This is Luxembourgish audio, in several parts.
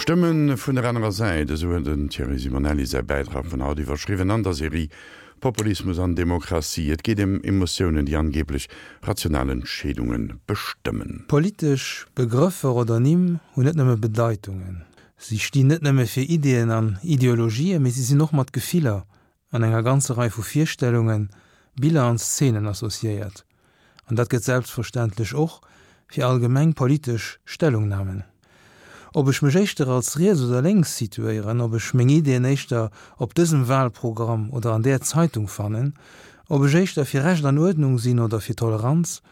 Stëmme vun der anerer Säit, esou huet den Thierry Simonelli säi Bäitrag vun haut iwwerschriwwen an der Serie Populismus an Demokratie. Et geet ëm Emotiounen, déi angeeblech rational Entscheedunge bestëmmen. Politesch Begrëffer oder Nimm hunn net nëmme Bedeitungen. Si stinn net nëmme fir Ideeën an Ideologien, mee si sinn och mat Gefiller an enger ganzer Rei vu Virstellungen, Biller an Szenen associéiert. An dat gëtt selbstverständlech och fir allgemeng politesch Stellungnamen. Ob ech mech éischter als riets oder lénks situéieren, ob ech meng Ideeën éischter op dësem Wahlprogramm oder an där Zeitung fannen, ob ech éischter fir Recht an Uerdnung sinn oder fir Toleranz,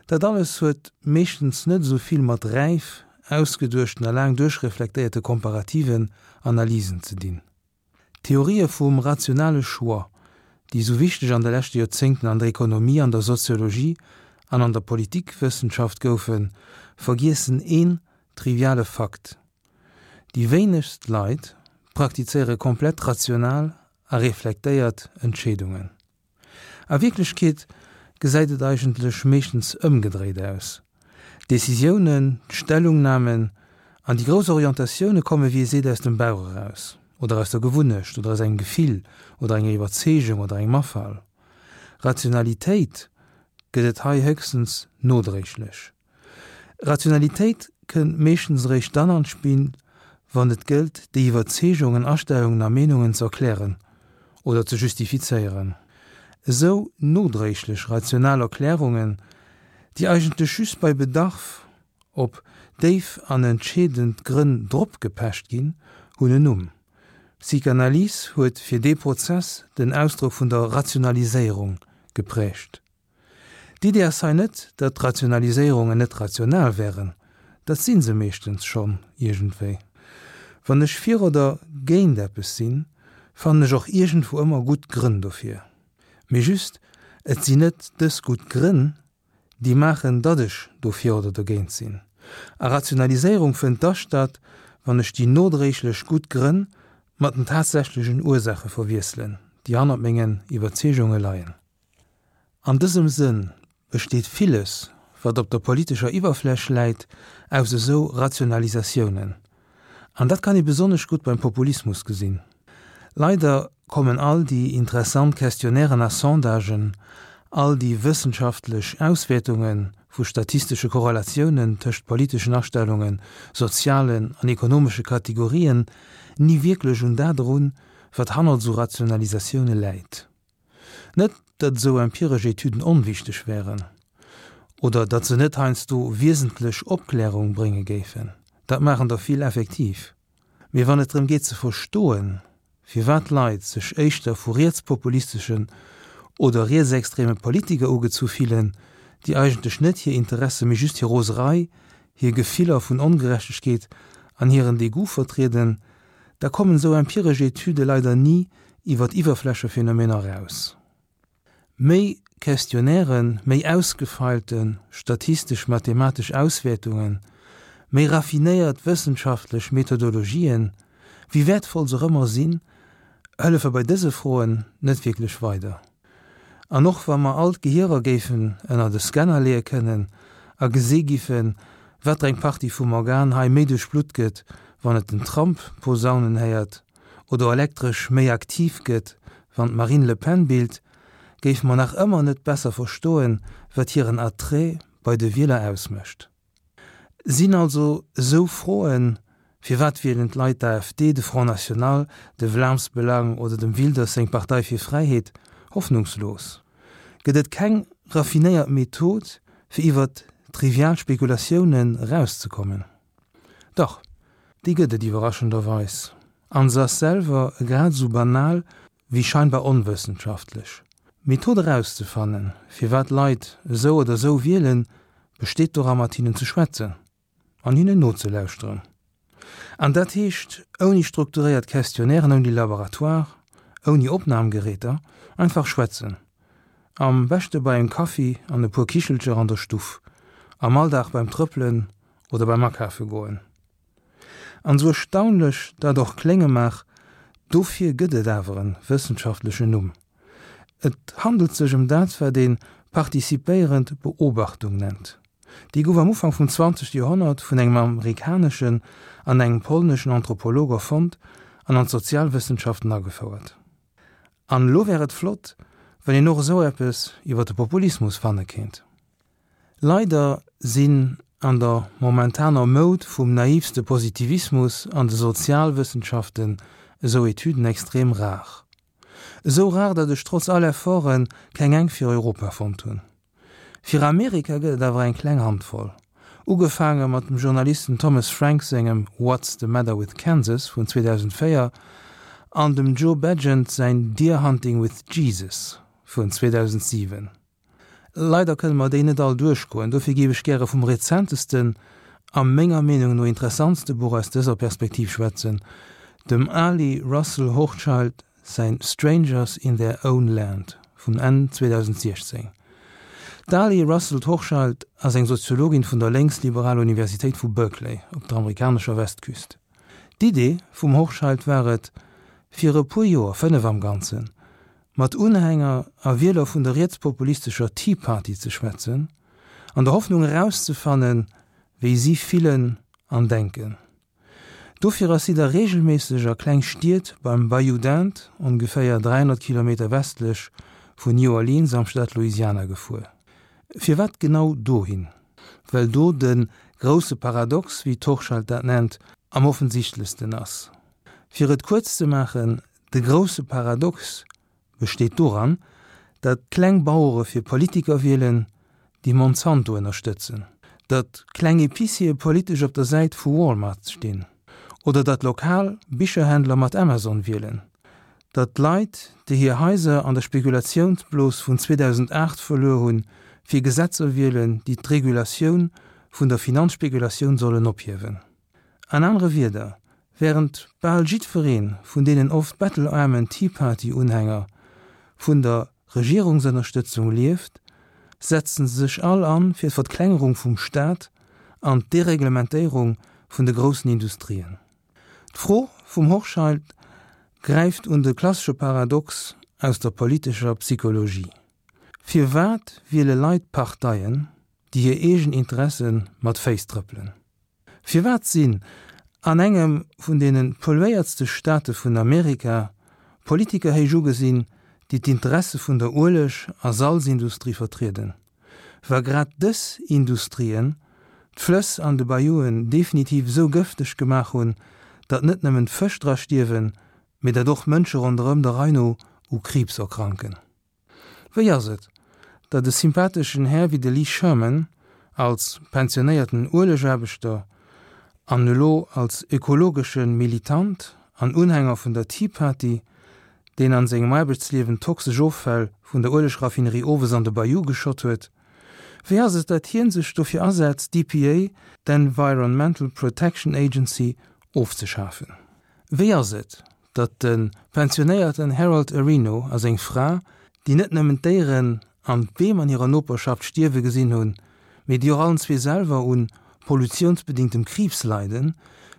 dat alles huet meeschtens net esou vill mat räif ausgeduechten a laang duerchreflektéierte komparativen Analysen ze dinn. D'Theorië vum rationale Choix, déi esou wichteg an de leschte Joerzéngten an der Ekonomie, an der Soziologie an an der Politikwëssenschaft goufen, vergiessen een triviale Fakt, Déi wéinegst Leit praktizéiere komplett rational a reflektéiert Entscheedungen. A Wierklechkeet gesäit et eigentlech meeschtens ëmgedréit aus, D'Decisiounen, d'Stellungnamen an déi grouss Orientatioune komme wéi ee seet aus dem Bauch eraus, oder aus der Gewunnecht, oder aus engem Gefill, oder enger Iwwerzeegung oder engem Afall. Rationalitéit gëtt et hei héchstens nodréiglech. Rationalitéit kënnt meeschtens eréischt dann an d'Spill, wann et gëllt, déi Iwwerzeegungen, Astellungen a Meenungen ze erklären oder ze justifizéieren. Esou nodréiglech rational Erklärungen, déi eigentlech just bei Bedarf op déif an entscheedend Grënn dropgepecht ginn, hunn en Numm. D'Psychanalyse huet fir dee Prozess den Ausdrock vun der Rationaliséierung geprägt. D'Idee ass hei net, datt Rationaliséierungen net rational wären, dat si se meeschtens schonn iergendwéi. Wann ech fir oder géint eppes sinn, fannen ech och iergendwou ëmmer gutt Grënn dofir. Mee just, et sinn net dës gutt Grënn, déi maachen, datt ech dofir oder dogéint sinn. A Rationaliséierung fënnt da statt, wann ech déi nodréiglech gutt Grënn mat den tatsächlechen Ursaache verwiesselen, déi hannert mengen Iwwerzeegunge leien. An dësem Sënn besteet villes, wat op der politescher Iwwerfläch läit, aus esou Rationalisatiounen. An dat kann ee besonnesch gutt beim Populismus gesinn. Leider kommen all déi interessant Questionnairen a Sondagen, all déi wëssenschaftlech Auswäertunge vu statistesche Korrelatiounen tëscht politeschen Astellungen, sozialen an ekonomesche Kategorien ni wierklech un dat erun, wat hannert esou Rationalisatioune läit. Net, datt esou empiresch Etüden onwichteg wären oder datt se net heiansdo wiesentlech Opklärung brénge géifen, dat maachen der vill effektiv. Mee wann et drëm geet ze verstoen, firwat Leit sech éischter vu rietspopulisteschen oder rietsextreme Politiker ugezu fillen, déi eigentlech net hir Interesse mee just hir Roserei, hir Gefiller vun Ongerechtegkeet an hiren Degoût vertrieden, da kommen esou empiresch Etüde leider ni iwwer d'Iwwerflächephänomener eraus. Méi Questionnairen, méi ausgefeilte statistesch-mathematesch Auswäertungen, méi raffinéiert wëssenschaftlech Methodologien, wéi wäertvoll se och ëmmer sinn, hëllefe bei dëse Froen net wierklech weider. An och wa mer all d'Gehierer géifen ënnert e Scanner leeë kënnen a gesi giffen, wat fir eng Partie vum Organ hei méi duerchblutt gëtt, wann et den Trump posaunen héiert, oder elektresch méi aktiv gëtt, wann d'Marine Le Pen billt, géife mer nach ëmmer net besser verstoen, wat hiren Attrait bei de Wieler ausmécht. Sinn also esou Froen, Firwat wielen d'Leit d'AfD, de Front National, de Vlaams Belang oder dem Wilders seng Partei fir Fräiheet, hoffnungslos? Gëtt et keng raffinéiert Method, fir iwwert trivial Spekulatiounen erauszekommen? Dach, déi gëtt et iwwerraschenderweis, an se ass selwer grad esou banal wéi scheinbar onwëssenschaftlech. D'Method erauszefannen, firwat Leit esou oder esou wielen, besteet dora mat hinnen ze schwätzen an hinnen nozelauschteren. An dat heescht ouni strukturéiert Questionnairen, ouni Laboratoire, ouni Opnamgeräter, einfach schwätzen. Am beschte bei engem Kaffi an e puer Kichelcher an der Stuff, am Alldag beim Trëppelen oder beim Akafe goen. An esou erstaunlech dat och klénge mag, dofir gëtt et awer en wëssenschaftlechen Numm. Et handelt sech ëm dat wat een participéierend Beobachtung nennt. Déi gouf am Ufank vum 20. Joerhonnert vun engem amerikaneschen an engem polneschen Anthropolog erfonnt an an d'Sozialwëssenschaften agefouert. An elo wär et flott, wann een och esou eppes iwwer de Populismus fanne kéint. Leider sinn an der momentaner Moud vum naivste Positivismus an de Sozialwëssenschaften esou Etüden extrem rar. Esou rar, datt ech trotz all Efforte keng eng fir Europa fonnt hunn. Fir Amerika gëtt et awer eng kleng Handvoll. Ugefaange mat dem Journalisten Thomas Frank sengem What's the Matter with Kansas vun 2004 an dem Joe Bagent säin Deer Hunting with Jesus vun 2007. Leider kënne mer déi net all duerchgoen, dofir géif ech gäre vum rezentesten a menger Meenung no interessantste Buch aus dëser Perspektiv schwätzen, dem Ali Russell Hochschild säin Strangers in their own land vun Enn 2016. D'Ali Russell Hochschild ass eng Soziologin vun der lénksliberaler Universitéit vu Berkeley op der amerikanescher Westküst. D'Idee vum Hochschild war et, fir e puer Joer, 5 am Ganzen, mat Unhänger a Wieler vun der rietspopulistescher Tea Party ze schwätzen, an der Hoffnung erauszefannen, wéi si fillen an denken. Dofir ass si da reegelméisseg a kleng Stied beim Bayou d'Inde, ongeféier 300 Kilometer westlech vun New Orleans am Staat Louisiana gefuer. Firwat genau dohin? Well do de grousse Paradox, wéi d'Hochschild dat nennt, am offensichtlechsten ass. Fir et kuerz ze maachen, De grousse Paradox besteet doran, datt kleng Bauere fir Politiker wielen, déi Monsanto ënnerstëtzen, datt kleng Epiciere politesch op der Säit vu Walmart stinn, oder datt lokal Bicherhändler mat Amazon wielen, datt Leit, déi hir Haiser an der Spekulatiounsblos vun 2008 verluer hunn, fir Gesetzer wielen, déi d'Regulatioun vun der Finanzspekulatioun sollen ophiewen. An anere Wierder, Wärend bal jiddweree vun deenen oft bettelaarmen Tea Party-Unhänger vun der Regierungsënnerstëtzung lieft, setzen se sech all an fir d'Verklengerung vum Staat an d'Dereglementéierung vun de groussen Industrien. D'Fro vum Hochschild gräift un de klassesche Paradox aus der politescher Psychologie, Firwat wiele Leit Parteien, déi hir eegen Interesse mat Féiss trëppelen? Firwat sinn an engem vun deene polluéiertste Staate vun Amerika Politiker héich ugesinn, déi d'Interesse vun der Ueleg a Salzindustrie vertrieden, wa grad dës Industrien d'Flëss an de Bayouen definitiv esou gëfteg gemaach hunn, datt net nëmmen d'Fësch dra stierwen, mee datt och Mënsche ronderëm der Rei no u Kriibs erkranken? Wéi ass et, datt e sympatheschen Här wéi de Lee Sherman, als pensionéierten Uelegaarbechter an elo als ökologesche Militant an Unhänger vun der Tea Party, deen an sengem Aarbechtsliewen toxesch Offäll vun der Uelegraffinerie owes an de Bayou geschott huet, wéi ass et, datt hien sech dofir asetzt, d'EPA, d'Environmental Protection Agency, ofzeschafen? Wéi ass et, datt de pensionéierten Harold Areno a seng Fra, déi net nëmmen d'Déieren an d'Beem an hirer Noperschaft stierwe gesinn hunn, mee déi och allen zwee selwer un pollutiounsbedingtem Kriibs leiden,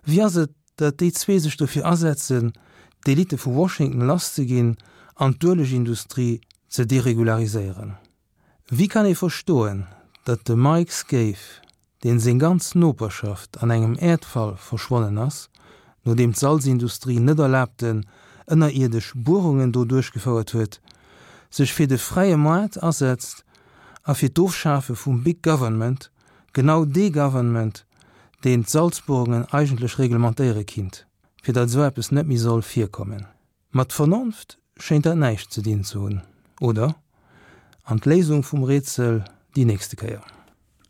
wéi ass et, datt déi zwee sech dofir asetzen, d'Elite vu Washington lasszeginn an d'Uelegindustrie ze deregulariséieren? Wéi kann ee verstoen, datt de Mike Scaife, deen seng ganz Noperschaft an engem Äerdfall verschwonnen ass, nodeem d'Salzindustrie net erlaabten ënnerierdesch Buerungen do duerchgefouert huet, sech fir de fräie Moart asetzt a fir d'Ofschafe vum Big Government, genau dee Government, deen d'Salzbuerungen eigentlech reglementéiere kinnt, fir datt esou eppes net méi soll virkommen. Mat Vernonft schéint dat näischt ze dinn ze hunn, oder? An d'Léisung vum Rätsel déi nächste Kéier.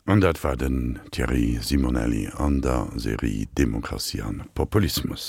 An dat war den Thierry Simonelli an der Serie Demokratie an Populismus.